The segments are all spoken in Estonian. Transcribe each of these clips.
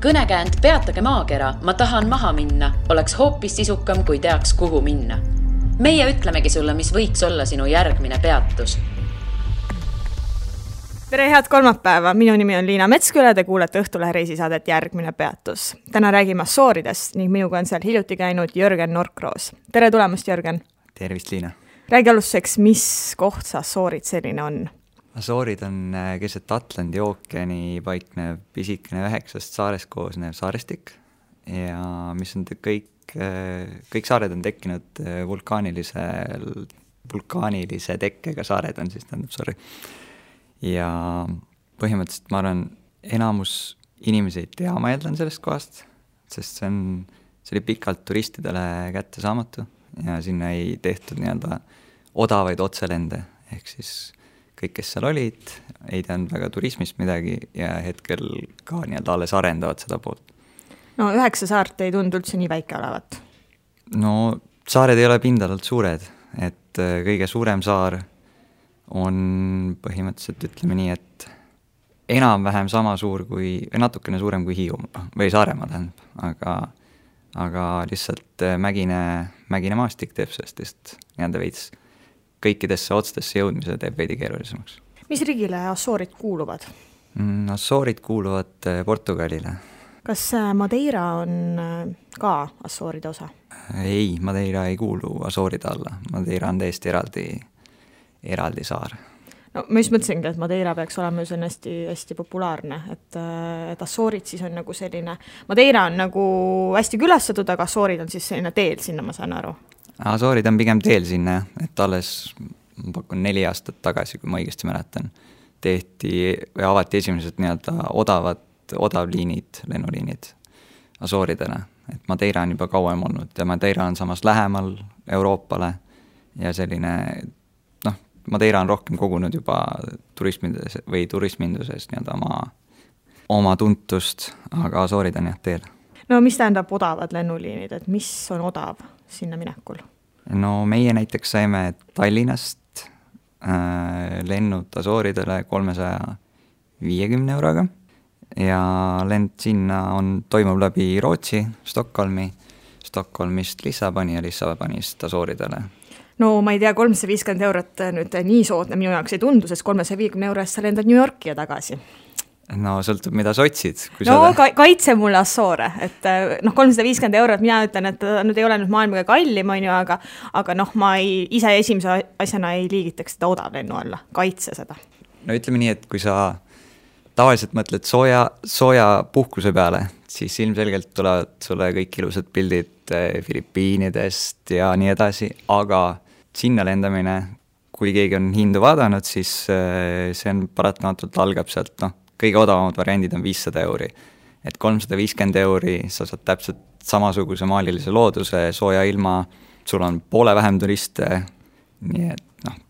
Kõnekäänd Peatage maakera, ma tahan maha minna, oleks hoopis sisukam, kui teaks, kuhu minna. Meie ütlemegi sulle, mis võiks olla sinu järgmine peatus. Tere, head kolmapäeva! Minu nimi on Liina Metsküle, te kuulete Õhtulehe reisisaadet Järgmine peatus. Täna räägime Asooridest ning minuga on seal hiljuti käinud Jörgen Norkroos. Tere tulemast, Jörgen! Tervist, Liina! Räägi alustuseks, mis koht see Asoorid selline on? Asoorid on keset Atlandi ookeani paiknev pisikene 9 saarest koosnev saarestik ja mis on kõik saared on tekkinud vulkaanilise tekkega saared on siis, ja põhimõtteliselt ma arvan, enamus inimesi ei tea, ma eeldan sellest kohast, sest see oli pikalt turistidele kätte saamatu ja sinna ei tehtud nii-öelda odavaid otselende, ehk siis kõik, kes seal olid, ei teadnud väga turismist midagi ja hetkel ka nii-öelda alles arendavad seda poolt. No 9 saart ei tundu üldse nii väike olevat. No saared ei ole pindalalt suured, et kõige suurem saar on põhimõtteliselt, ütleme nii, et enam-vähem sama suur kui, natukene suurem kui Hiiumaa või Saaremaa tähendab, aga lihtsalt mägine maastik teeb sellest nii-öelda veits kõikidesse otstesse jõudmise teeb veidi keerulisemaks. Mis riigile Asoorid kuuluvad? Asoorid kuuluvad Portugalile. Kas Madeira on ka Asooride osa? Ei, Madeira ei kuulu Asooride alla. Madeira on täiesti eraldi saar. No, ma just mõtlesingi, et Madeira peaks olema hästi populaarne, et Asoorid siis on nagu selline, Madeira on nagu hästi külastatud, aga Asoorid on siis selline teel sinna, ma saan aru. Asoorid on pigem teel sinna, et alles, ma pakun 4 aastat tagasi, kui ma õigesti mäletan, avati esimesed nii-öelda odavliinid, lennuliinid Asooridele, et Madeira on juba kauem olnud ja Madeira on samas lähemal Euroopale ja selline, Madeira on rohkem kogunud juba turisminduses nii-öelda oma tuntust, aga Asoorid on jah teel. No mis tähendab odavad lennuliinid, et mis on odav sinna minekul? No meie näiteks saime Tallinnast lennud Asooridele 350 euroga ja lend sinna toimub läbi Rootsi, Stockholmist Lissaboni ja Lissabonist Asooridele. No ma ei tea, 350 eurot nüüd nii soodne minu jaoks ei tundu, sest 350 eurost sa lendad New Yorki ja tagasi. No sõltub, mida sa otsid. Kaitse mulle Assoore, et 350 eurot, mina ütlen, et nüüd ei ole nüüd maailmaga kallim, aga ma ise esimese asjana ei liigitaks seda odavlennu alla, kaitse seda. No ütleme nii, et kui sa tavaliselt mõtled sooja puhkuse peale, siis ilmselgelt tulevad sulle kõik ilusad pildid Filipiinidest ja nii edasi, aga sinna lendamine, kui keegi on hindu vaadanud, siis see on paratamatult algab sealt, kõige odavamad variandid on 500 euri. Et 350 euri sa saad täpselt samasuguse maalilise looduse, sooja ilma, sul on poole vähem turiste, nii et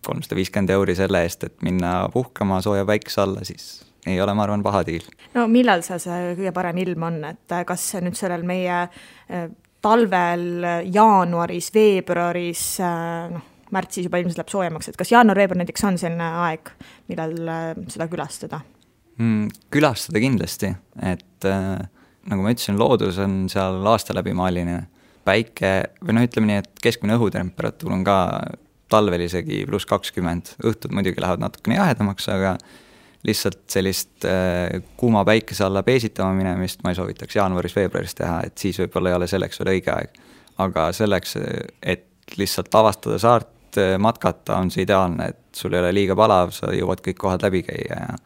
350 euri selle eest, et minna puhkama sooja päikese alla, siis ei ole, ma arvan, paha diil. No millal see kõige parem ilm on, et kas nüüd sellel meie talvel, jaanuaris, veebruaris, märtsis juba ilmselt läheb soojemaks, et kas jaanuar-veebruar näiteks on selline aeg, millal seda külastada? Külastada kindlasti, et nagu ma ütlesin, loodus on seal aasta läbi maaline. Päike, või ütleme nii, et keskmine õhutemperatuur on ka talvel isegi +20. Õhtud muidugi lähevad natukene jahedamaks, aga lihtsalt sellist kuuma päikese alla peesitama minemist ma ei soovitaks jaanuaris-veebruaris teha, et siis võib-olla ei ole selleks veel õige aeg. Aga selleks, et lihtsalt avastada saart, matkata, on see ideaalne, et sul ei ole liiga palav, sa jõuad kõik kohad läbi käia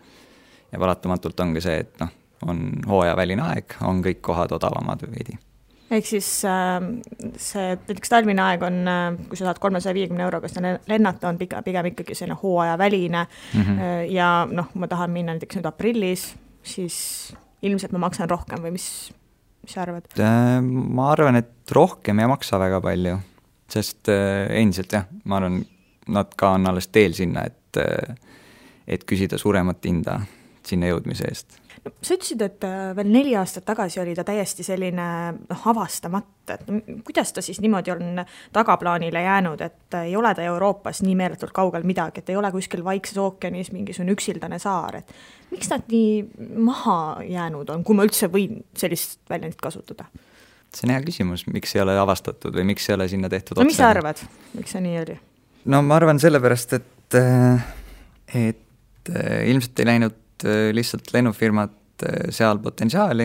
ja paratamatult ongi see, et on hooajaväline aeg, on kõik kohad odavamad või veidi. Ehk siis see näiteks talvine aeg on, kui sa saad 350 euroga lennata, on pigem ikkagi selline hooajaväline ja ma tahan minna näiteks nüüd aprillis, siis ilmselt ma maksan rohkem või mis sa arvad? Ma arvan, et rohkem ei maksa väga palju, sest endiselt jah, ma arvan, nad ka on alles teel sinna, et küsida suuremat hinda. sinna jõudmise eest. No, sa ütlesid, et veel 4 aastat tagasi oli ta täiesti selline avastamata, et kuidas ta siis niimoodi on tagaplaanile jäänud, et ei ole ta Euroopas nii meeletult kaugel midagi, et ei ole kuskil Vaikses ookeanis mingisugune üksildane saar, et miks nad nii maha jäänud on, kui ma üldse võin sellist väljendit kasutada? See on hea küsimus, miks ei ole avastatud või miks ei ole sinna tehtud no mis sa arvad, miks see nii oli? No ma arvan sellepärast, et ilmselt ei läinud lihtsalt lennufirmad seal potentsiaali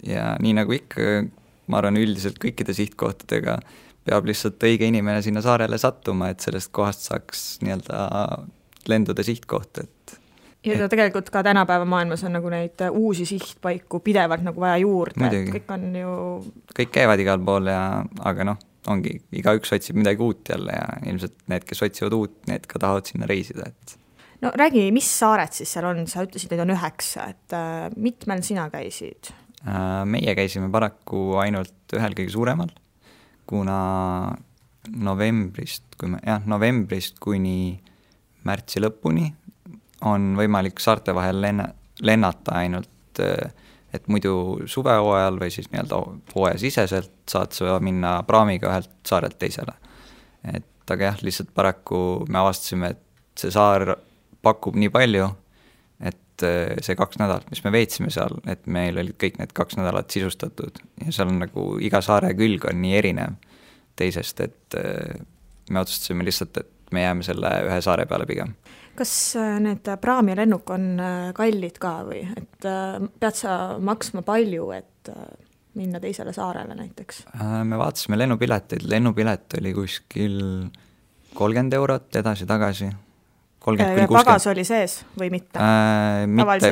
ja nii nagu ikka, ma arvan üldiselt kõikide sihtkohtadega peab lihtsalt õige inimene sinna saarele sattuma, et sellest kohast saaks nii-öelda lenduda sihtkoht, ja tegelikult ka tänapäeva maailmas on nagu neid uusi sihtpaiku pidevalt nagu vaja juurde, et kõik on ju... Kõik käivad igal pool aga ongi, igaüks otsib midagi uut jälle ja ilmselt need, kes otsivad uut, need ka tahavad sinna reisida, No räägi, mis saared siis seal on, sa ütlesid, neid on 9, et mitmel sina käisid? Meie käisime paraku ainult ühel kõige suuremal, kuna novembrist kuni märtsi lõpuni on võimalik saarte vahel lennata ainult, et muidu suvehooajal või siis nii-öelda hooajasiseselt saad sa minna praamiga ühelt saarelt teisele. Aga lihtsalt paraku me avastasime, et see saar pakub nii palju, et see 2 nädalat, mis me veetsime seal, et meil olid kõik need 2 nädalat sisustatud ja seal on nagu iga saare külg on nii erinev teisest, et me otsustasime lihtsalt, et me jääme selle ühe saare peale pigem. Kas need praam ja lennuk on kallid ka või? Et pead sa maksma palju, et minna teisele saarele näiteks? Me vaatasime lennupilet oli kuskil 30 eurot edasi-tagasi. Ja pagas oli sees või mitte?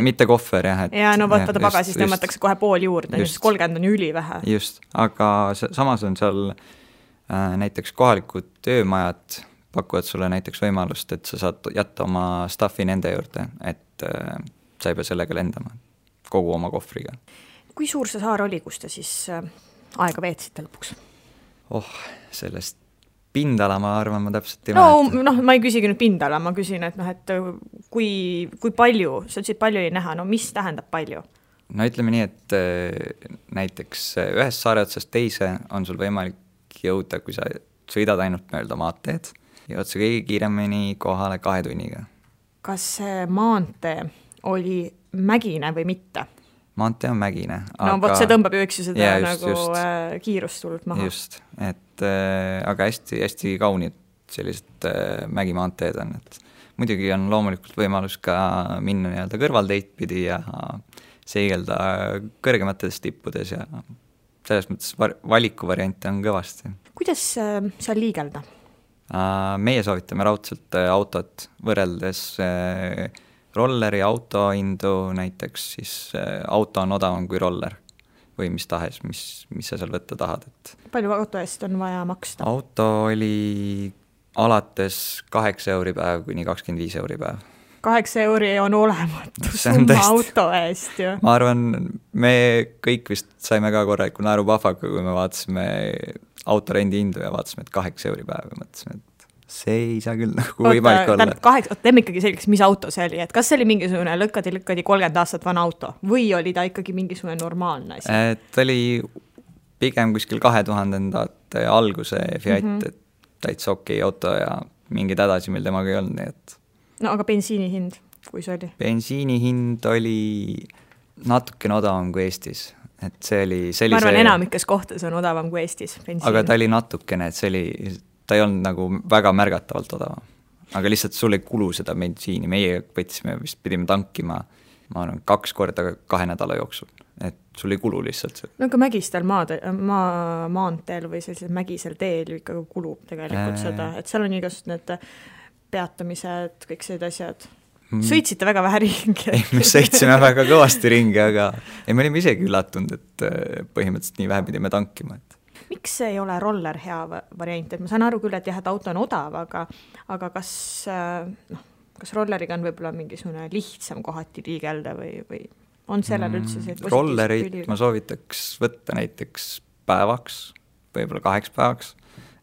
Mitte kohver, jah. Ja no vaata pagasis tõmmatakse kohe pool juurde, 30 on üli vähe. Just, aga samas on seal näiteks kohalikud töömajad pakuvad sulle näiteks võimalust, et sa saad jätta oma staffi nende juurde, et sa ei pea sellega lendama kogu oma kohvriga. Kui suur see saar oli, kus te siis aega veetsite lõpuks? Sellest pindala, ma arvan, ma täpselt ei mäleta. No, ma ei küsigi nüüd pindala, ma küsin, et kui palju, sa ütlesid palju ei näha, no mis tähendab palju? No ütleme nii, et näiteks ühest saare otsast teise on sul võimalik jõuda, kui sa sõidad ainult mööda maanteed, jõud sa kõige kiiremini kohale 2 tunniga. Kas see maantee oli mägine või mitte? Maantee on mägine. No vot see tõmbab ju üks seda kiirust tulnud maha. Just, aga hästi, hästi kaunid sellised mägimaanteed on. Muidugi on loomulikult võimalus ka minna nii-öelda kõrvalteid pidi ja seigelda kõrgemates tippudes ja selles mõttes valikuvariante on kõvasti. Kuidas seal liigelda? Meie soovitame raudselt autot võrreldes rolleri auto hindu, näiteks siis auto on odavam kui roller või mis tahes, mis sa seal võtta tahad. Palju auto eest on vaja maksta? Auto oli alates 8 euri päev kuni 25 euri päev. 8 euri on olematu summa auto eest ju. Ma arvan, me kõik vist saime ka korraliku naerupahvaga, kui me vaatasime autorendi hindu ja vaatasime, et 8 euri päev ja mõtlesime, et see ei saa küll nagu võimalik olla. Teeme ikkagi selgeks, mis auto see oli, et kas see oli mingisugune lõkkadi 30 aastat vana auto või oli ta ikkagi mingisugune normaalne asi? Ta oli pigem kuskil 2000-ndate alguse Fiat, et täitsa okei auto ja mingid hädasi meil temaga ei olnud, nii et... No aga bensiini hind, kui see oli? Bensiini hind oli natukene odavam kui Eestis. Et see oli ma arvan, enamikes kohtades on odavam kui Eestis bensiin. Aga ta oli natukene, et ta ei olnud nagu väga märgatavalt odavam. Aga lihtsalt sul ei kulu seda bensiini. Meie võtsime, vist pidime tankima, ma arvan, 2 korda 2 nädala jooksul. Et sul ei kulu lihtsalt see. No aga mägistel maanteel või sellisel mägisel teel ikka kulub tegelikult seda, et seal on igasugused need peatamised, kõik sellised asjad. Sõitsite väga vähe ringi? Ei, me sõitsime väga kõvasti ringi, aga me olime isegi üllatunud, et põhimõtteliselt nii vähe pidime tankima. Miks ei ole roller hea variant? Et ma saan aru küll, et jah, et auto on odav, aga kas rolleriga on võib-olla mingisugune lihtsam kohati liigelda või on sellel üldse see positiivse rollerit ma soovitaks võtta näiteks päevaks, võib-olla 2 päevaks,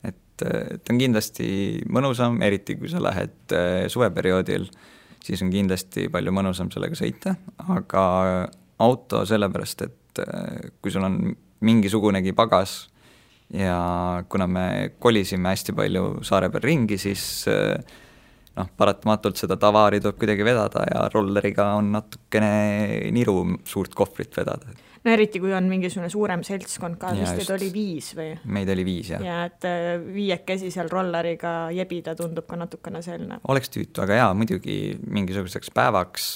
et on kindlasti mõnusam, eriti kui sa lähed suveperioodil, siis on kindlasti palju mõnusam sellega sõita, aga auto sellepärast, et kui sul on mingisugunegi pagas ja kuna me kolisime hästi palju saare peal ringi, siis paratamatult seda tavaari tuleb kuidagi vedada ja rolleriga on natukene niru suurt kohvrit vedada. No eriti, kui on mingisugune suurem seltskond ka, vist et oli 5 või? Meid oli 5, jah. Ja et 5 seal rolleriga jebida tundub ka natukene selline. Oleks tüütu, aga muidugi mingisuguseks päevaks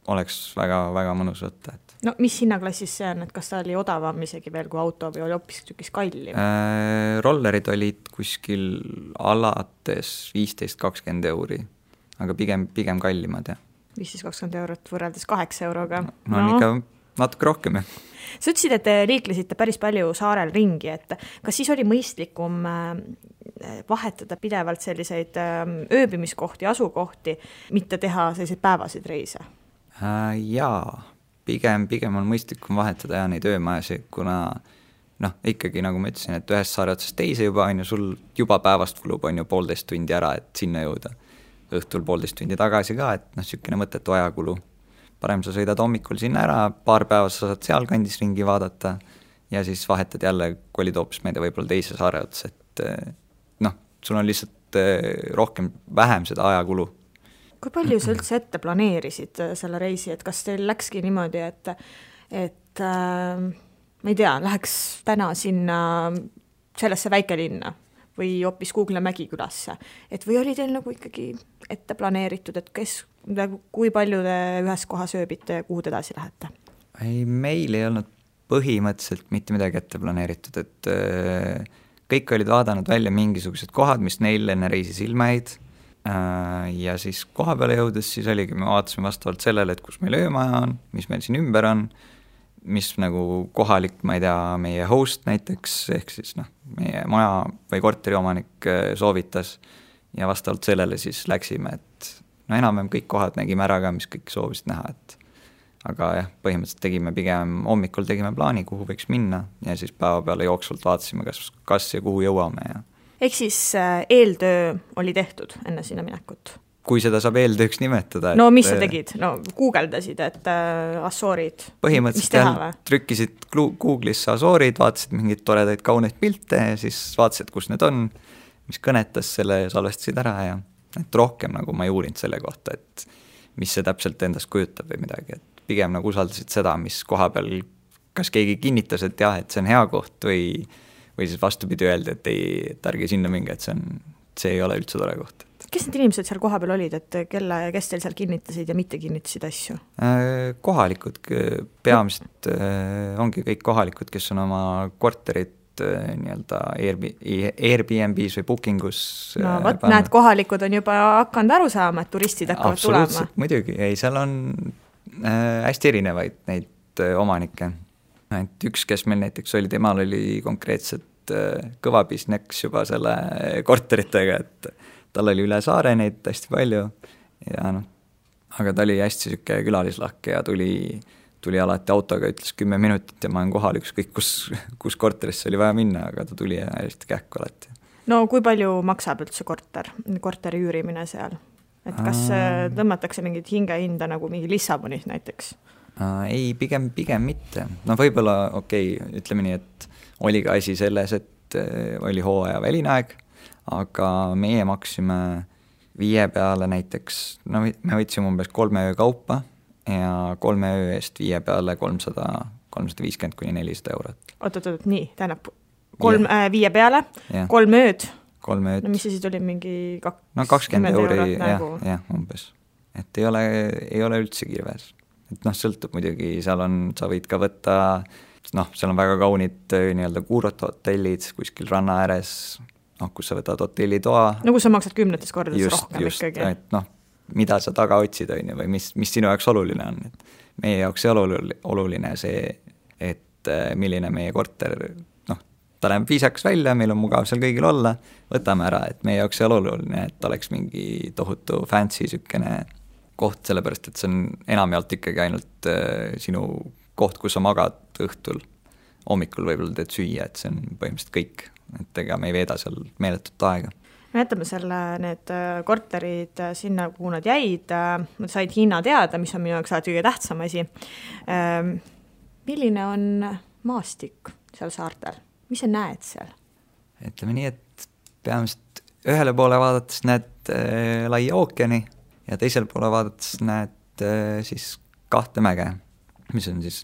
oleks väga, väga mõnus võtta. No mis hinnaklassis see on, et kas ta oli odavam isegi veel kui auto või oli hoopis tükis kallim? Rollerid olid kuskil alates 15-20 euri, aga pigem kallimad, jah. 15-20 eurot võrreldes 8 euroga. No on ikka natuke rohkem, jah. Sa ütlesid, et te liiklesite päris palju saarel ringi, et kas siis oli mõistlikum vahetada pidevalt selliseid ööbimiskohti, asukohti, mitte teha selliseid päevasid reise? Jaa, pigem on mõistlikum vahetada neid öömajasid, kuna ikkagi nagu ma ütlesin, et ühest saare otsast teise juba on ju sul juba päevast kulub on ju 1,5 tundi ära, et sinna jõuda. Õhtul 1,5 tundi tagasi ka, et sükene mõttetu ajakulu. Parem sa sõidad hommikul sinna ära, paar päeva sa saad seal kandis ringi vaadata ja siis vahetad jälle, kolid hoopis meelde võib-olla teise saare ots, et sul on lihtsalt vähem seda ajakulu. Kui palju sa üldse ette planeerisid selle reisi, et kas teil läkski niimoodi, et ma ei tea, läheks täna sinna sellesse väikelinna või hoopis Kuugla Mägikülasse, et või oli teil nagu ikkagi ette planeeritud, et kui palju te ühes kohas ööbite ja kuhu te edasi lähete? Meil ei olnud põhimõtteliselt mitte midagi ette planeeritud, et kõik olid vaadanud välja mingisugused kohad, mis neil enne reisi silma jäid. Ja siis koha peale jõudes siis oligi, me vaatasime vastavalt sellele, et kus meil öömaja on, mis meil siin ümber on, mis nagu kohalik, ma ei tea, meie host näiteks, ehk siis meie maja või korteri omanik soovitas ja vastavalt sellele siis läksime, et enam-vähem kõik kohad nägime ära ka, mis kõik soovisid näha, et aga jah, põhimõtteliselt tegime pigem hommikul tegime plaani, kuhu võiks minna ja siis päeva peale jooksvalt vaatasime, kas ja kuhu jõuame ja ehk siis eeltöö oli tehtud enne sinna minekut? Kui seda saab eeltööks nimetada. No mis sa tegid? No guugeldasid, et Asoorid. Põhimõtteliselt trükkisid Google'isse Asoorid, vaatasid mingeid toredaid kauneid pilte ja siis vaatasid, kus need on, mis kõnetas selle ja salvestasid ära ja et rohkem nagu ma ei uurinud selle kohta, et mis see täpselt endast kujutab või midagi, et pigem nagu usaldasid seda, mis koha peal, kas keegi kinnitas, et jah, et see on hea koht või siis vastupidi öelda, et et ärge sinna minge, et see ei ole üldse tore koht. Kes need inimesed seal koha peal olid, et kes teil seal kinnitasid ja mitte kinnitasid asju? Kohalikud, peamiselt ongi kõik kohalikud, kes on oma korterit nii-öelda Airbnb's või bookingus. No võt, näed, kohalikud on juba hakanud aru saama, et turistid hakkavad tulema. Absoluutselt, muidugi. Seal on hästi erinevaid neid omanikke. Et üks, kes meil näiteks oli, temal oli konkreetselt kõva business juba selle korteritega, et tal oli üle saare neid hästi palju ja aga ta oli hästi süke külalislahke ja tuli alati autoga, ütles 10 minutit ja ma olen kohal ükskõik, kus korterisse oli vaja minna, aga ta tuli hästi kähku alati. No kui palju maksab üldse korteri üürimine seal? Et kas tõmmatakse mingit hingehinda nagu mingi Lissabonis näiteks? Ei, pigem mitte. Võib-olla, ütleme nii, et oli ka asi selles, et oli hooaja väline aeg, aga meie maksime 5 peale näiteks, me võtsime umbes 3 öö kaupa ja 3 öö eest 5 peale 350 kuni 400 eurot. Oot, nii, tähendab 5 peale, 3 ööd. 3 ööd. No mis siis oli mingi 20 euri, jah, umbes. Et ei ole üldse kirves. Et sõltub muidugi, sa võid ka võtta, seal on väga kaunid nii-öelda kuurot hotellid kuskil ranna ääres, kus sa võtad hotellitoa. No kus sa maksad 10 kordades rohkem ikkagi. Et mida sa taga otsid või mis sinu jaoks oluline on. Et meie jaoks oluline see, et milline meie korter, ta läheb viisaks välja, meil on mugav seal kõigil olla, võtame ära, et meie jaoks ei ole oluline, et oleks mingi tohutu fancy sükene koht, sellepärast, et see on enamjaolt ikkagi ainult sinu koht, kus sa magad õhtul, hommikul võib-olla teed süüa, et see on põhimõtteliselt kõik, et ega me ei veeda seal meeletut aega. me jätame need korterid sinna, kuhu nad jäid, nad said hinna teada, mis on minu jaoks alati kõige tähtsam asi. Milline on maastik seal saartel? Mis sa näed seal? Ütleme nii, et peamiselt ühele poole vaadates näed laia ookeani ja teisel poole vaadates näed siis 2 mäge, mis on siis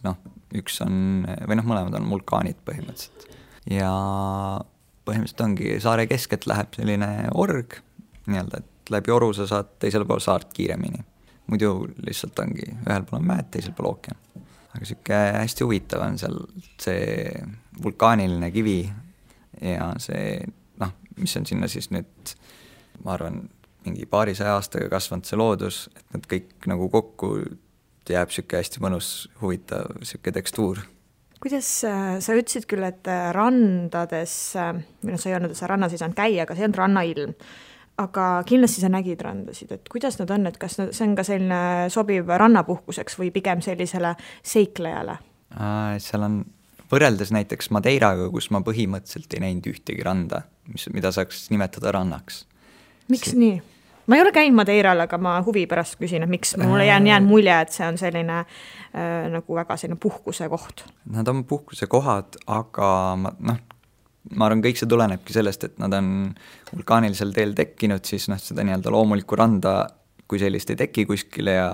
üks on, või mõlemad on vulkaanid põhimõtteliselt. Ja põhimõtteliselt ongi saare keskelt läheb selline org, nii-öelda, et läbi oru sa saad teisel pool saart kiiremini. Muidu lihtsalt ongi, ühel pool on mäed, teisel pool ookean. Aga siuke hästi huvitav on seal see vulkaaniline kivi ja see, mis on sinna siis nüüd, ma arvan, mingi 200 aastaga kasvanud see loodus, et nad kõik nagu kokku jääb siuke hästi mõnus, huvitav siuke tekstuur. Kuidas sa ütlesid küll, et randades, või sa ei olnud, et sa rannas ei saanud käia, aga see on rannailm. Aga kindlasti sa nägid randasid, et kuidas nad on, et kas see on ka selline sobiv rannapuhkuseks või pigem sellisele seiklejale? Seal on võrreldes näiteks Madeiraga, kus ma põhimõtteliselt ei näinud ühtegi randa, mida saaks nimetada rannaks. Miks nii? Ma ei ole käinud Madeiral, aga ma huvi pärast küsin, et miks mulle jään mulje, et see on selline nagu väga selline puhkuse koht. Nad on puhkuse kohad, aga ma arvan, kõik see tulenebki sellest, et nad on vulkaanilisel teel tekkinud, siis seda nii-öelda loomulikku randa, kui sellist ei teki kuskile ja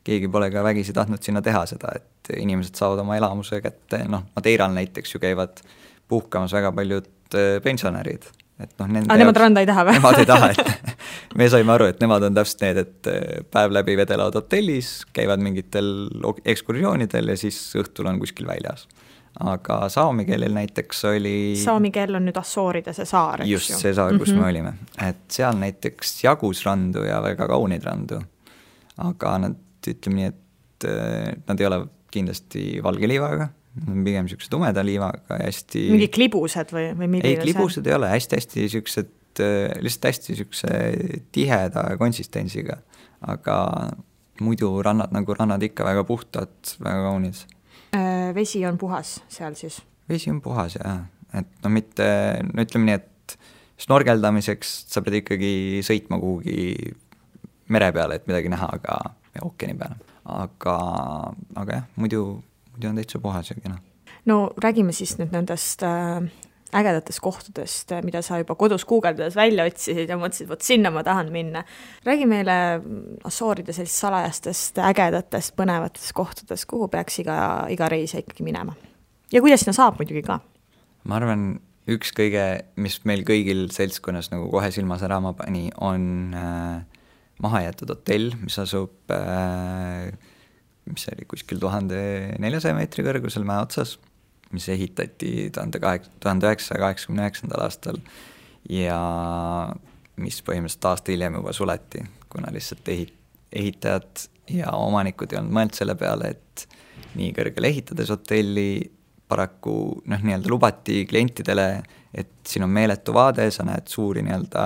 keegi pole ka vägisi tahtnud sinna teha seda, et inimesed saavad oma elamuse kätte, Madeiral näiteks ju käivad puhkamas väga paljud pensionärid. Nemad randa ei taha või? Nemad ei taha, et me saime aru, et nemad on täpselt need, et päev läbi vedelevad hotellis, käivad mingitel ekskursioonidel ja siis õhtul on kuskil väljas. Aga saami keelel näiteks oli... Saami keel on nüüd Assooride see saar, eks just see saar, kus me olime. Et seal näiteks jagus randu ja väga kaunid randu. Aga nad, ütleme nii, et nad ei ole kindlasti valge liivaga, pigem siukse tumeda liivaga ja hästi... Mingi klibused või milline? Ei, klibused ei ole, hästi siuksed, lihtsalt hästi siukse tiheda konsistentsiga. Aga muidu rannad nagu rannad ikka väga puhtad, väga kaunid. Vesi on puhas seal siis? Vesi on puhas, jah. Et mitte, ütleme nii, et snorgeldamiseks sa pead ikkagi sõitma kuhugi mere peale, et midagi näha, aga ookeani peale. Aga jah, muidu on täitsa puhas ja kena. No räägime siis nüüd nendest ägedatest kohtadest, mida sa juba kodus guugeldades välja otsisid ja mõtlesid, võt sinna ma tahan minna. Räägi meile Assooride sellist salajastest, ägedatest, põnevatest kohtadest, kuhu peaks iga reisija ikkagi minema. Ja kuidas sinna saab muidugi ka? Ma arvan, üks kõige, mis meil kõigil seltskonnas nagu kohe silma särama pani, on mahajäetud hotell, mis asub mis oli kuskil 1400 meetri kõrgusel mäe otsas, mis ehitati 1989. Aastal ja mis põhimõtteliselt aasta hiljem juba suleti, kuna lihtsalt ehitajad ja omanikud ei olnud mõeld selle peale, et nii kõrgele ehitades hotelli paraku nii-öelda lubati klientidele, et siin on meeletu vaade, sa näed suuri nii-öelda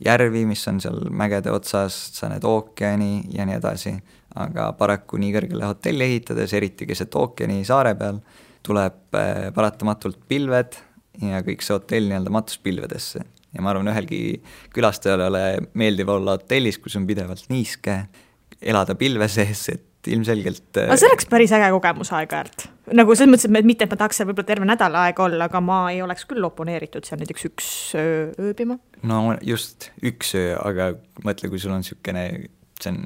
järvi, mis on seal mägede otsas, sa näed ookeani ja nii edasi, aga paraku nii kõrgele hotelli ehitades, eriti keset ookeani saare peal, tuleb paratamatult pilved ja kõik see hotell nii-öelda matus pilvedesse. Ja ma arvan, ühelgi külastajale meeldib olla hotellis, kus on pidevalt niiske, elada pilve sees, et ilmselgelt... Aga see oleks päris äge kogemus aeg-ajalt. Nagu selles mõttes, et mitte, et ma tahaks võib-olla terve nädal aega olla, aga ma ei oleks küll oponeeritud seal näiteks üks ööbima. No just üks öö, aga mõtle, kui sul on siukene, see on...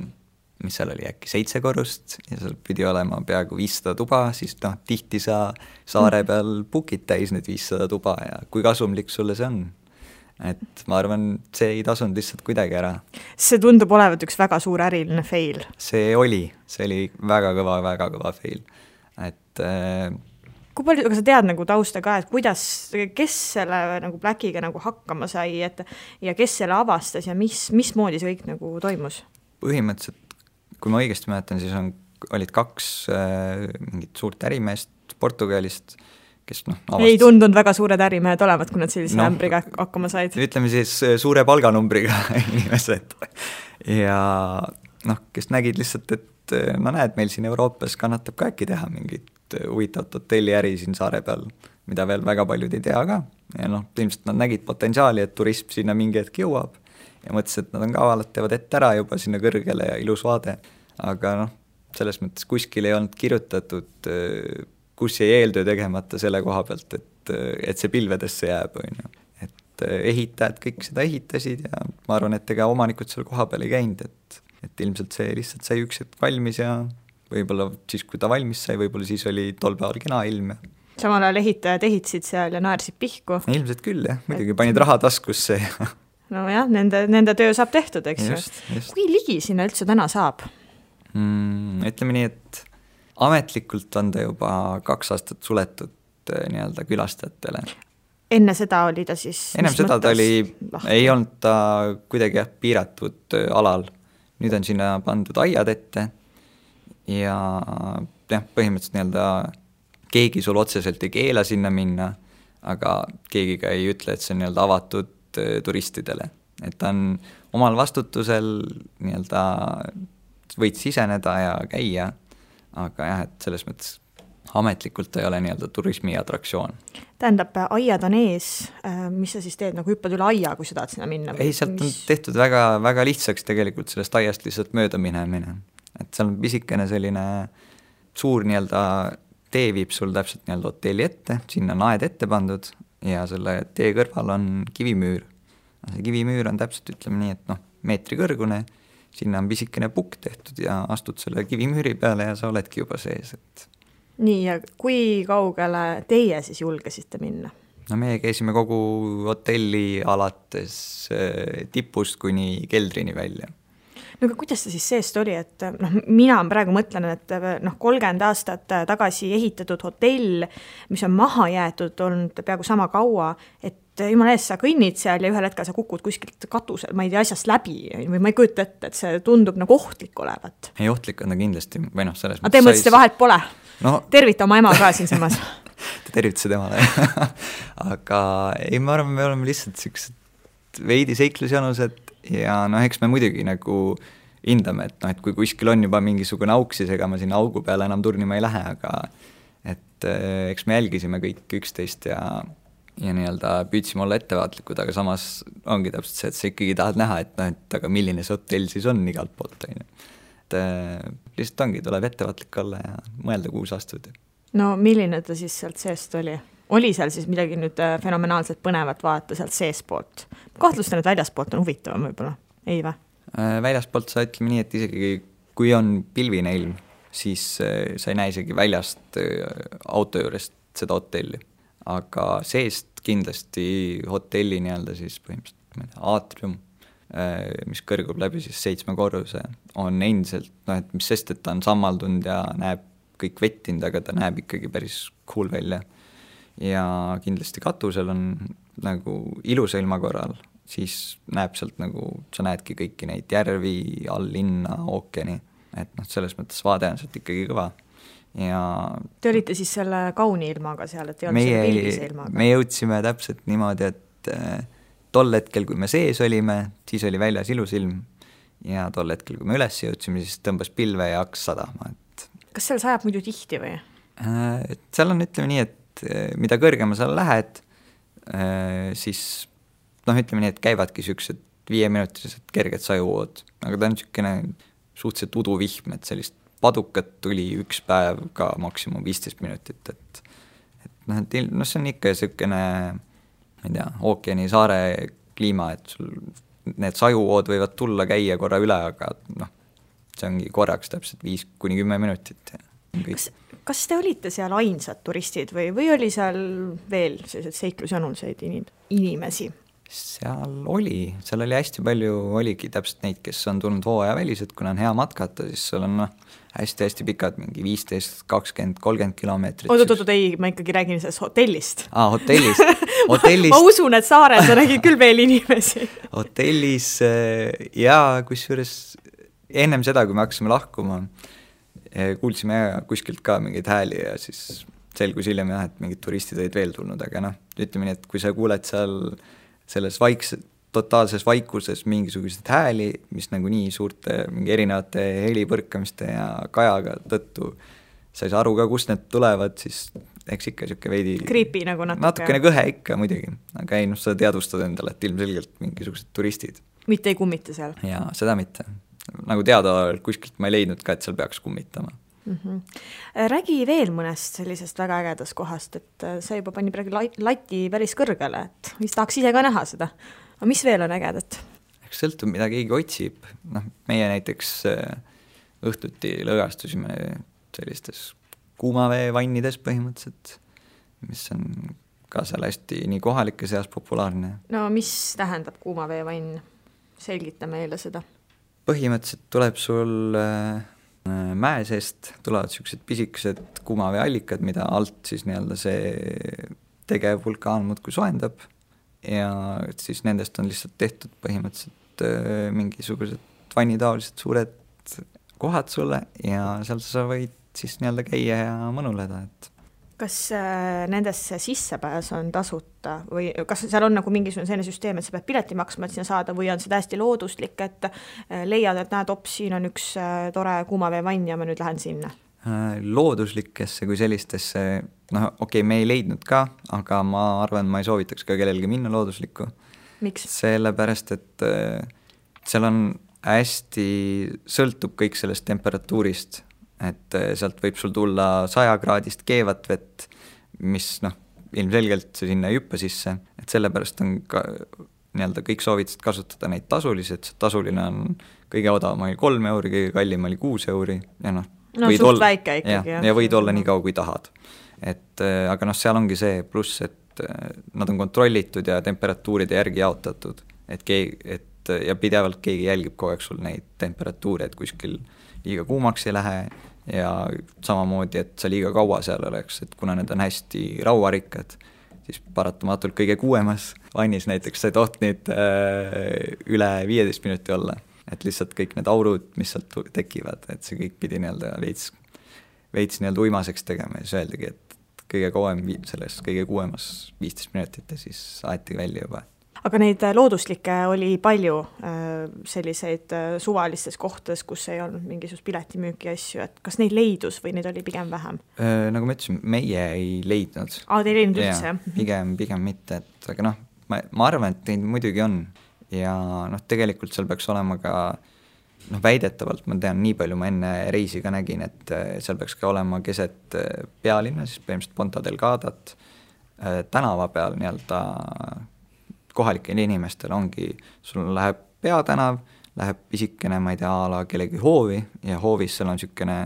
mis seal oli äkki 7 korrust ja seal pidi olema peaaegu 500 tuba, siis tihti sa saare peal bookid täis need 500 tuba ja kui kasumlik sulle see on. Et ma arvan, see ei tasunud lihtsalt kuidagi ära. See tundub olevat üks väga suur äriline fail. See oli väga kõva fail. Et... Kui palju, aga sa tead nagu tausta ka, et kuidas, kes selle nagu Blackiga nagu hakkama sai ja kes selle avastas ja mismoodi see kõik nagu toimus? Põhimõtteliselt kui ma õigesti mäletan, siis olid 2 mingit suurt ärimeest Portugalist, kes avastas... Ei tundunud väga suured ärimehed olevat, kui nad sellise ämbriga hakkama said. Ütleme siis suure palganumbriga inimesed. Ja kes nägid lihtsalt, et näed, meil siin Euroopas kannatab ka äkki teha mingit huvitavat hotelliäri siin saare peal, mida veel väga paljud ei tea ka. Ja noh, ilmselt nad nägid potentsiaali, et turism sinna mingi hetk jõuab ja mõtlesid, et nad on kavalad, teevad ette ära juba sinna kõrgele ja ilus vaade. Aga noh, selles mõttes kuskil ei olnud kirjutatud, kus jäi eeltöö tegemata selle koha pealt, et see pilvedesse jääb, on ju. Et ehitajad kõik seda ehitasid ja ma arvan, et ega omanikud seal koha peal ei käinud, et ilmselt see lihtsalt sai üks hetk valmis ja võib-olla siis, kui ta valmis sai, võib-olla siis oli tol päeval kena ilm ja samal ajal ehitajad ehitasid seal ja naersid pihku. Ilmselt küll, jah. Muidugi panid raha taskusse. No jah, nende töö saab tehtud, eks just. Kui ligi sinna üldse täna saab? Ütleme nii, et ametlikult on ta juba 2 aastat suletud nii-öelda külastajatele. Enne seda oli ta siis... Ennem seda ta oli, ei olnud ta kuidagi piiratud alal. Nüüd on sinna pandud aiad ette ja põhimõtteliselt nii-öelda keegi sul otseselt ei keela sinna minna, aga keegi ka ei ütle, et see on nii-öelda avatud turistidele. Et ta on omal vastutusel nii-öelda võid siseneda ja käia, aga jah, et selles mõttes ametlikult ei ole nii-öelda turismi atraktsioon. Tähendab, aiad on ees, mis sa siis teed, nagu hüppad üle aia, kui sa tahad sinna minna? Ei, sealt on tehtud väga, väga lihtsaks tegelikult sellest aiast lihtsalt mööda minemine. Et seal on pisikene selline suur nii-öelda tee viib sul täpselt nii-öelda hotelli ette, sinna on aed ette pandud ja selle tee kõrval on kivimüür. See kivimüür on täpselt, ütleme nii, et meetri kõrgune, sinna on pisikene pukk tehtud ja astud selle kivimüüri peale ja sa oledki juba sees. Nii, ja kui kaugele teie siis julgesite minna? No meie käisime kogu hotelli alates tipust kuni keldrini välja. No aga kuidas see siis seest oli, et mina praegu mõtlen, et 30 aastat tagasi ehitatud hotell, mis on maha jäetud, on peaaegu sama kaua, et jumala ees sa kõnnid seal ja ühel hetkel sa kukud kuskilt katusel, ma ei tea, asjast läbi või ma ei kujuta ette, et see tundub nagu ohtlik olevat. Ei, ohtlik on ta kindlasti, või selles mõttes. Te mõtlesite vahelt pole? Tervita oma ema ka siin samas. Te tervitase temale. Aga ei, ma arvan, me oleme lihtsalt siuksed veidi seiklusjanused ja eks me muidugi nagu hindame, et kui kuskil on juba mingisugune auk, siis ega ma sinna augu peale enam turnima ei lähe, aga et eks me jälgisime kõik üksteist ja nii-öelda püüdsime olla ettevaatlikud, aga samas ongi täpselt see, et sa ikkagi tahad näha, et aga milline see hotell siis on igalt poolt. Et lihtsalt ongi, tuleb ettevaatlik olla ja mõelda, kuhu sa astud. No milline ta siis sealt seest oli? Oli seal siis midagi nüüd fenomenaalselt põnevat vaata sealt seespoolt? Kahtlustan, et väljaspoolt on huvitavam võib-olla, ei või? Väljaspoolt sa ütleme nii, et isegi kui on pilvine ilm, siis sa ei näe isegi väljast auto juurest seda hotelli. Aga seest kindlasti hotelli nii-öelda siis põhimõtteliselt aatrium, mis kõrgub läbi siis 7 korruse, on endiselt, et mis sest, et ta on sammaldunud ja näeb kõik vettinud, aga ta näeb ikkagi päris cool välja. Ja kindlasti katusel on nagu ilusa ilma korral, siis näeb sealt nagu, sa näedki kõiki neid järvi, all linna, ookeani, et selles mõttes vaade on sealt ikkagi kõva. Ja te olite siis selle kauni ilmaga seal, et ei olnud selle pildise ilmaga? Me jõudsime täpselt niimoodi, et tol hetkel, kui me sees olime, siis oli väljas ilus ilm ja tol hetkel, kui me üles jõudsime, siis tõmbas pilve ja hakkas sadama. Kas seal sajab muidu tihti või? Seal on, ütleme nii, et mida kõrgema sa lähed, siis ütleme nii, et käivadki siuksed 5-minutilised kerged sajuvood, aga ta on siukene suhteliselt uduvihm, et sellist padukat tuli üks päev ka maksimum 15 minutit, et see on ikka siukene, ma ei tea, ookeani saare kliima, et sul need sajuvood võivad tulla, käia korra üle, aga see ongi korraks täpselt 5-10 minutit. Kas te olite seal ainsad turistid või oli seal veel sellised seiklusjanulseid inimesi? Seal oli hästi palju, oligi täpselt neid, kes on tulnud hooaja välised, kuna on hea matkata, siis seal on hästi-hästi pikad, mingi 15, 20, 30 kilomeetrit. Oot, ei, ma ikkagi räägin sellest hotellist. Hotellist. Ma usun, et saarel sa nägid küll veel inimesi. Hotellis ja kusjuures ennem seda, kui me hakkasime lahkuma, kuulsime kuskilt ka mingeid hääli ja siis selgus hiljem jah, et mingid turistid olid veel tulnud, aga ütleme nii, et kui sa kuuled seal selles totaalses vaikuses mingisugused hääli, mis nagu nii suurte mingi erinevate helipõrkamiste ja kajaga tõttu sa ei saa aru ka, kust need tulevad, siis eks ikka niisugune veidi creepy nagu natukene kõhe ikka muidugi, aga ei, sa teadvustad endale, et ilmselgelt mingisugused turistid. Mitte ei kummita seal? Jaa, seda mitte. Nagu teada kuskilt ma ei leidnud ka, et seal peaks kummitama. Räägi veel mõnest sellisest väga ägedast kohast, et see juba pani praegu lati päris kõrgele, et mis tahaks ise ka näha seda. Aga mis veel on ägedat? Eks sõltub, mida keegi otsib. Meie näiteks õhtuti lõõgastusime sellistes kuumaveevannides põhimõtteliselt, mis on ka seal hästi nii kohalike seas populaarne. No mis tähendab kuumaveevann? Selgita meile seda. Põhimõtteliselt tuleb sul mäe seest, tulevad sellised pisikesed kuumaveeallikad, mida alt siis nii-öelda see tegev vulkaan muudkui soendab ja siis nendest on lihtsalt tehtud põhimõtteliselt mingisugused vannitaolised suured kohad sulle ja seal sa võid siis nii-öelda käia ja mõnuleda, et kas nendesse sissepääs on tasuta või kas seal on nagu mingisugune selline süsteem, et sa pead pileti maksma, et sinna saada või on see täiesti looduslik, et leiad, et näed, siin on üks tore kuumaveevann ja ma nüüd lähen sinna? Looduslikesse kui sellistesse, okei, me ei leidnud ka, aga ma arvan, ma ei soovitaks ka kellelgi minna looduslikku. Miks? Sellepärast, et seal on hästi, sõltub kõik sellest temperatuurist, et sealt võib sul tulla 100-kraadist keevat vett, mis ilmselgelt see sinna ei hüppa sisse, et sellepärast on ka nii-öelda kõik soovitasid kasutada neid tasulisi, et see tasuline on kõige odavam oli 3 euri, kõige kallim oli 6 euri ja suht väike ikkagi. Ja võid olla nii kaua, kui tahad. Et, aga seal ongi see pluss, et nad on kontrollitud ja temperatuuride järgi jaotatud, et ja pidevalt keegi jälgib kogu aeg sul neid temperatuure, et kuskil liiga kuumaks ei lähe ja samamoodi, et sa liiga kaua seal oleks, et kuna need on hästi rauarikkad, siis paratamatult kõige kuuemas vannis näiteks sa ei toht nüüd üle 15 minuti olla, et lihtsalt kõik need aurud, mis sealt tekivad, et see kõik pidi nii-öelda veits nii-öelda uimaseks tegema ja siis öeldagi, et kõige kauem selles kõige kuuemas 15 minutit ja siis aeti välja juba. Aga neid looduslikke oli palju selliseid suvalistes kohtades, kus ei olnud mingisugust piletimüüki asju, et kas neid leidus või neid oli pigem vähem? Nagu ma ütlesin, meie ei leidnud. Te ei leidnud üldse? Pigem mitte, et aga ma arvan, et neid muidugi on ja tegelikult seal peaks olema ka väidetavalt, ma tean, nii palju ma enne reisi ka nägin, et seal peaks ka olema keset pealinna, siis põhimõtteliselt Ponta Delgadat tänava peal nii-öelda kohalikel inimestel ongi, sul läheb peatänav, läheb pisikene, ma ei tea, ala kellegi hoovi ja hoovis seal on niisugune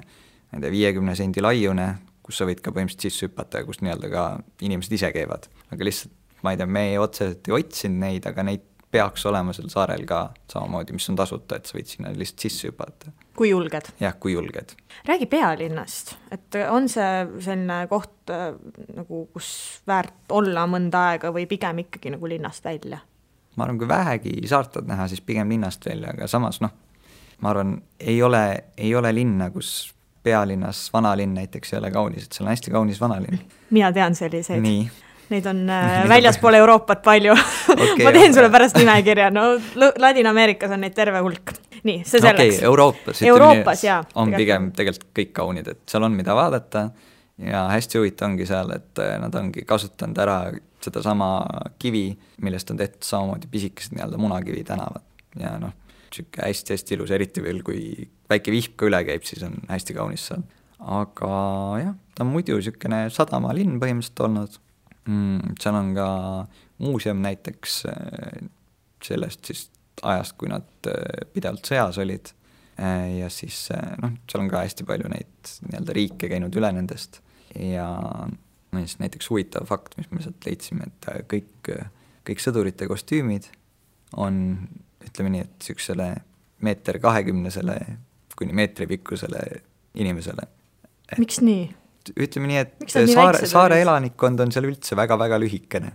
50 sendi laiune, kus sa võid ka põhimõtteliselt sisse hüpata ja kus nii-öelda ka inimesed ise käivad. Aga lihtsalt, ma ei tea, me otseselt ei otsinud neid, aga neid peaks olema seal saarel ka samamoodi, mis on tasuta, et sa võid sinna lihtsalt sisse hüpata. Kui julged? Jah, kui julged. Räägi pealinnast, et on see selline koht, nagu, kus väärt olla mõnda aega või pigem ikkagi nagu linnast välja? Ma arvan, kui vähegi saartad näha, siis pigem linnast välja, aga samas ma arvan, ei ole linna, kus pealinnas vanalinn näiteks ei ole kaunis, et seal on hästi kaunis vanalinn. Mina tean selliseid. Nii. Neid on väljaspool Euroopat palju. Okay, ma teen sulle pärast nimekirja, Ladina-Ameerikas on neid terve hulk. Nii, see selleks. Euroopas jaa. On pigem tegelikult kõik kaunid, et seal on mida vaadata ja hästi huvitav ongi seal, et nad ongi kasutanud ära seda sama kivi, millest on tehtud samamoodi pisikesed nii-öelda munakivi tänavad ja siuke hästi-hästi ilus, eriti veel kui väike vihk ka üle käib, siis on hästi kaunis seal. Aga jah, ta on muidu siukene sadamalinn põhimõtteliselt olnud. Seal on ka muuseum näiteks sellest siis ajast, kui nad pidevalt sõjas olid ja siis seal on ka hästi palju neid nii-öelda riike käinud üle nendest ja näiteks huvitav fakt, mis me sealt leidsime, et kõik sõdurite kostüümid on, ütleme nii, et siuksele 1,20 kuni meetri pikkusele inimesele. Miks nii? Ütleme nii, et saare elanikkond on seal üldse väga-väga lühikene.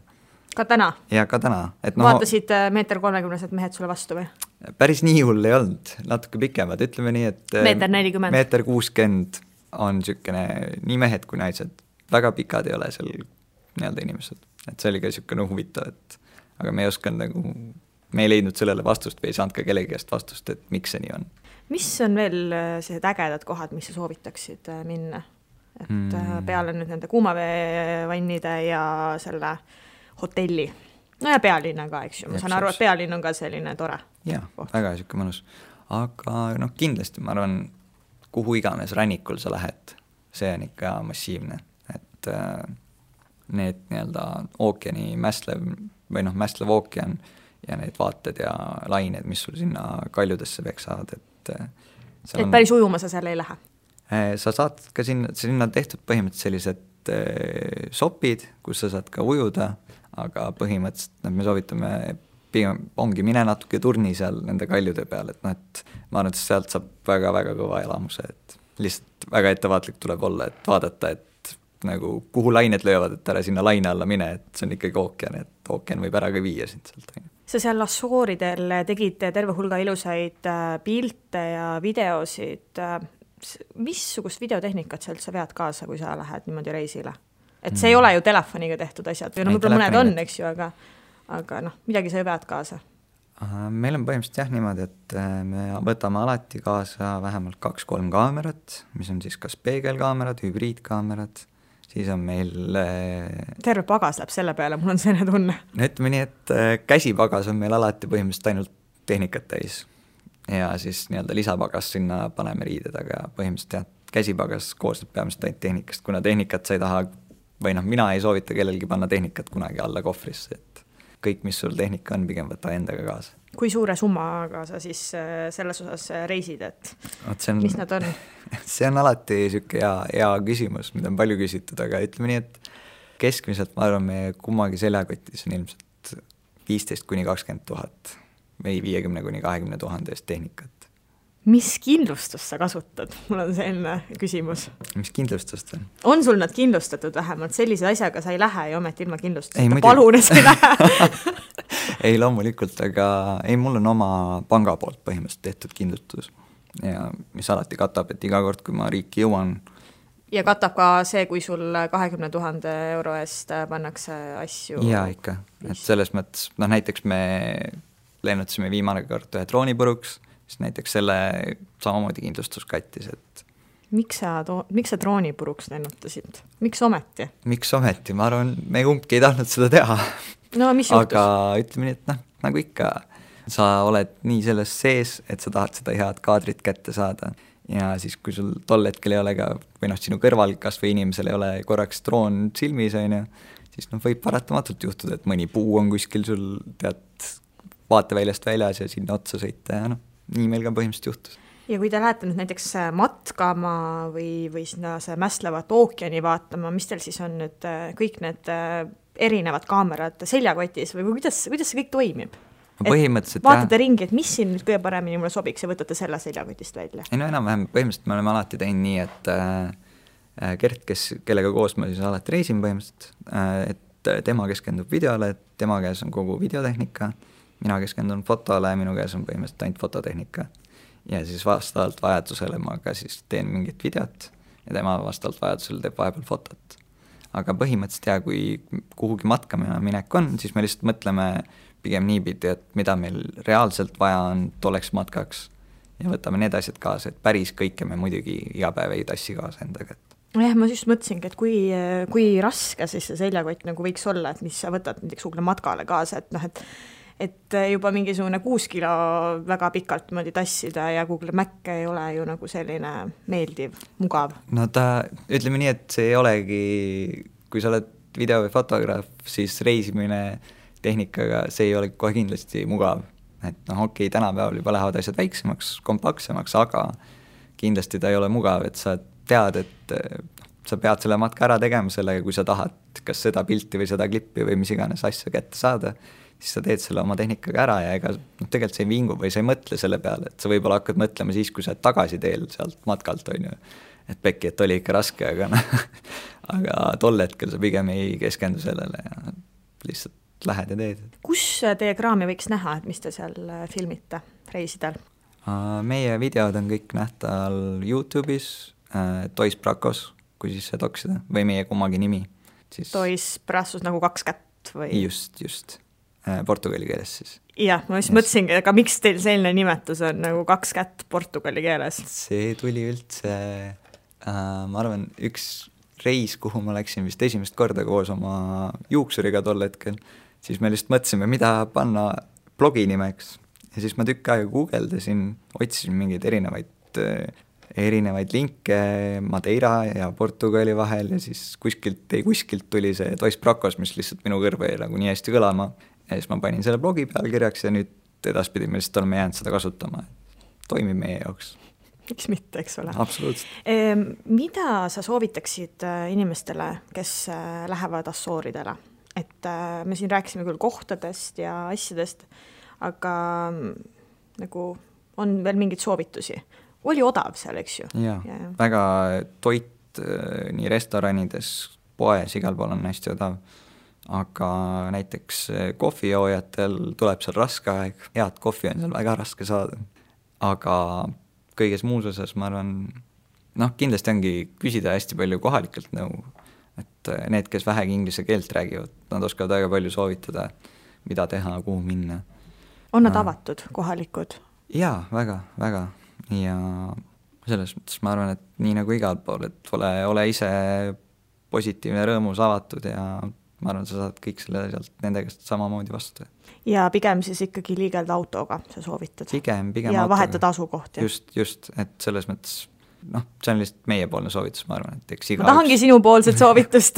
Ka täna? Ja ka täna. Vaatasid 1,30 mehed sulle vastu või? Päris nii hull ei olnud, natuke pikemad, ütleme nii, et 1,40 1,60 on niisugune nii mehed kui naised, väga pikad ei ole seal nii-öelda inimesed, et see oli ka niisugune huvitav, et aga me ei osanud me ei leidnud sellele vastust või ei saanud ka kellegi käest vastust, et miks see nii on. Mis on veel sellised ägedad kohad, mis sa soovitaksid minna? et peale nüüd nende kuumaveevannide ja selle hotelli. No ja pealinna ka, eks ju, ma saan aru, et pealinn on ka selline tore. Jah, väga siuke mõnus. Aga kindlasti ma arvan, kuhu iganes rannikul sa lähed, see on ikka massiivne, et need nii-öelda ookeani mästlev ookean ja need vaated ja lained, mis sul sinna kaljudesse peksavad, et päris ujuma sa seal ei lähe? Sa saad ka sinna tehtud põhimõtteliselt sellised sopid, kus sa saad ka ujuda, aga põhimõtteliselt me soovitame pigem ongi mine natuke turni seal nende kaljude peal, et et ma arvan, et sealt saab väga-väga kõva elamuse, et lihtsalt väga ettevaatlik tuleb olla, et vaadata, et nagu kuhu lained löövad, et ära sinna laine alla mine, et see on ikkagi ookean, et ookean võib ära ka viia sind sealt. Sa seal Assuuridel tegid terve hulga ilusaid pilte ja videosid. Missugust videotehnikat sa üldse vead kaasa, kui sa lähed niimoodi reisile? Et see ei ole ju telefoniga tehtud asjad, või võib-olla mõned on, eks ju, aga midagi sa ju vead kaasa. Meil on põhimõtteliselt jah niimoodi, et me võtame alati kaasa vähemalt 2-3 kaamerat, mis on siis kas peegelkaamerad, hübriidkaamerad, siis on meil terve pagas läheb selle peale, mul on selline tunne. No ütleme nii, et käsipagas on meil alati põhimõtteliselt ainult tehnikat täis ja siis nii-öelda lisapagas sinna paneme riided, aga põhimõtteliselt jah, käsipagas koosneb peamiselt ainult tehnikast, kuna tehnikat sa ei taha või mina ei soovita kellelgi panna tehnikat kunagi alla kohvrisse, et kõik, mis sul tehnika on, pigem võta endaga kaasa. Kui suure summaga sa siis selles osas reisid, et mis nad on? See on alati siuke hea küsimus, mida on palju küsitud, aga ütleme nii, et keskmiselt ma arvan, meie kummagi seljakotis on ilmselt 15-20 000 või 50-20 000 eest tehnikat. Mis kindlustust sa kasutad? Mul on selline küsimus. Mis kindlustust on? On sul nad kindlustatud vähemalt? Sellise asjaga sa ei lähe ja ometi ilma kindlustuseta. Palun, et sa ei lähe. Ei, loomulikult, aga mul on oma panga poolt põhimõtteliselt tehtud kindlustus ja mis alati katab, et iga kord, kui ma riiki jõuan. Ja katab ka see, kui sul 20 000 euro eest pannakse asju? Jaa, ikka. Et selles mõttes, näiteks me lennutasime viimane kord ühe drooni puruks, siis näiteks selle samamoodi kindlustus kattis, et Miks sa drooni puruks lennutasid? Miks ometi? Miks ometi? Ma arvan, me kumbki ei tahtnud seda teha. No, mis juhtus? Aga ütleme nii, et nagu ikka, sa oled nii selles sees, et sa tahad seda head kaadrit kätte saada. Ja siis, kui sul tol hetkel ei ole ka, või sinu kõrval kas või inimesel ei ole korraks droon silmis, siis võib paratamatult juhtuda, et mõni puu on kuskil sul vaateväljast väljas ja sinna otsa sõita ja nii meil ka põhimõtteliselt juhtus. Ja kui te lähete nüüd näiteks matkama või sinna see mästlevat ookeani vaatama, mis teil siis on nüüd kõik need erinevad kaamerad seljakotis või kuidas see kõik toimib? Vaatate ringi, et mis siin nüüd kõige paremini mulle sobiks ja võtate selle seljakotist välja? Ei, enam-vähem põhimõtteliselt me oleme alati teinud nii, et Gert, kellega koos ma siis alati reisin põhimõtteliselt, et tema keskendub videole, et tema käes on kogu videotehnika, mina keskendun fotole, minu käes on põhimõtteliselt ainult fototehnika. Ja siis vastavalt vajadusele ma ka siis teen mingit videot ja tema vastavalt vajadusele teeb vahepeal fotot. Aga põhimõtteliselt kui kuhugi matkama minek on, siis me lihtsalt mõtleme pigem niipidi, et mida meil reaalselt vaja on tolleks matkaks ja võtame need asjad kaasa, et päris kõike me muidugi iga päev ei tassi kaasa endaga. Jah, ma just mõtlesingi, et kui raske siis see seljakott nagu võiks olla, et mis sa võtad näiteks kuhugi matkale kaasa, et juba mingisugune 6 kilo väga pikalt mõdi tassida ja Google Mac ei ole ju nagu selline meeldiv, mugav. No ütleme nii, et see ei olegi, kui sa oled video- või fotograaf, siis reisimine tehnikaga, see ei ole kohe kindlasti mugav. Et okei, tänapäeval juba lähevad asjad väiksemaks, kompaktsemaks, aga kindlasti ta ei ole mugav, et sa tead, et sa pead selle matka ära tegema sellega, kui sa tahad kas seda pilti või seda klippi või mis iganes asja kätte saada, siis sa teed selle oma tehnikaga ära ja ega tegelikult sa ei vingu või sa ei mõtle selle peale, et sa võib-olla hakkad mõtlema siis, kui sa tagasi teel sealt matkalt, et pekki, et oli ikka raske, aga tol hetkel sa pigem ei keskendu sellele ja lihtsalt lähed ja teed. Kus teie kraami võiks näha, et mis te seal filmite reisidel? Meie videod on kõik nähtal YouTube'is, Toys Bracos, kui siis see toksida, või meie kummagi nimi. Toys Bracos nagu 2 kätt või? Just. Portugali keeles siis. Jah, ma just mõtlesingi, aga miks teil selline nimetus on nagu 2 kätt portugali keeles? See tuli üldse Ma arvan, üks reis, kuhu ma läksin vist esimest korda koos oma juuksuriga tol hetkel, siis me lihtsalt mõtlesime, mida panna blogi nimeks. Ja siis ma tükk aega guugeldasin, otsisin mingeid erinevaid linke Madeira ja Portugali vahel ja siis kuskilt tuli see Dos Bracos, mis lihtsalt minu kõrva jäi nagu nii hästi kõlama. Ja siis ma panin selle blogi pealkirjaks ja nüüd edaspidi me lihtsalt oleme jäänud seda kasutama. Toimib meie jaoks. Miks mitte, eks ole. Absoluutselt. Mida sa soovitaksid inimestele, kes lähevad Assooridele? Et me siin rääkisime küll kohtadest ja asjadest, aga nagu on veel mingeid soovitusi. Oli odav seal, eks ju? Ja. Väga toit nii restoranides, poes, igal pool on hästi odav. Aga näiteks kohvijoojatel tuleb seal raske aeg. Head kohvi on seal väga raske saada. Aga kõiges muus osas ma arvan, kindlasti ongi küsida hästi palju kohalikelt nõu. Et need, kes vähegi inglise keelt räägivad, nad oskavad väga palju soovitada, mida teha, kuhu minna. On nad avatud, kohalikud? Jaa, väga, väga. Ja selles mõttes ma arvan, et nii nagu igal pool, et ole ise positiivne, rõõmus, avatud ja ma arvan, sa saad kõik selle sealt nende käest samamoodi vastu. Ja pigem siis ikkagi liigelda autoga, sa soovitad? Pigem ja autoga. Vahetada asukohti? Just, et selles mõttes, see on lihtsalt meiepoolne soovitus, ma arvan, et eks ma tahangi sinu poolset soovitust.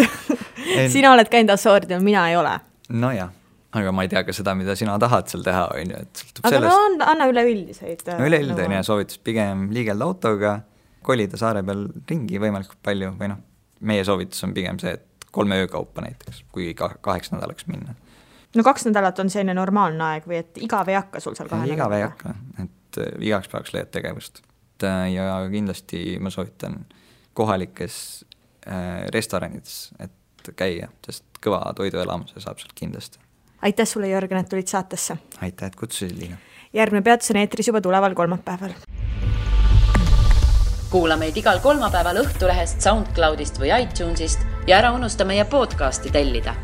Sina oled käinud Assooridel, mina ei ole. No jah. Aga ma ei tea ka seda, mida sina tahad seal teha, on ju, et sõltub aga sellest. Anna üleüldiseid. Üleüldine soovitus pigem liigelda autoga, kolida saare peal ringi võimalikult palju, või meie soovitus on pigem see, et 3 öökaupa näiteks, kui 8 nädalaks minna. 2 nädalat on selline normaalne aeg või et igav ei hakka sul seal 2 nädalaka? Igav ei hakka, et igaks päevaks leiad tegevust. Ja kindlasti ma soovitan kohalikes restoranides, et käia, sest kõva toiduelamuse saab sealt kindlasti. Aitäh sulle, Jörgen, et tulid saatesse. Aitäh, et kutsusid, Liina. Järgmine peatus on eetris juba tuleval kolmapäeval. Kuula meid igal kolmapäeval Õhtulehest, SoundCloudist või iTunesist ja ära unusta meie podcasti tellida.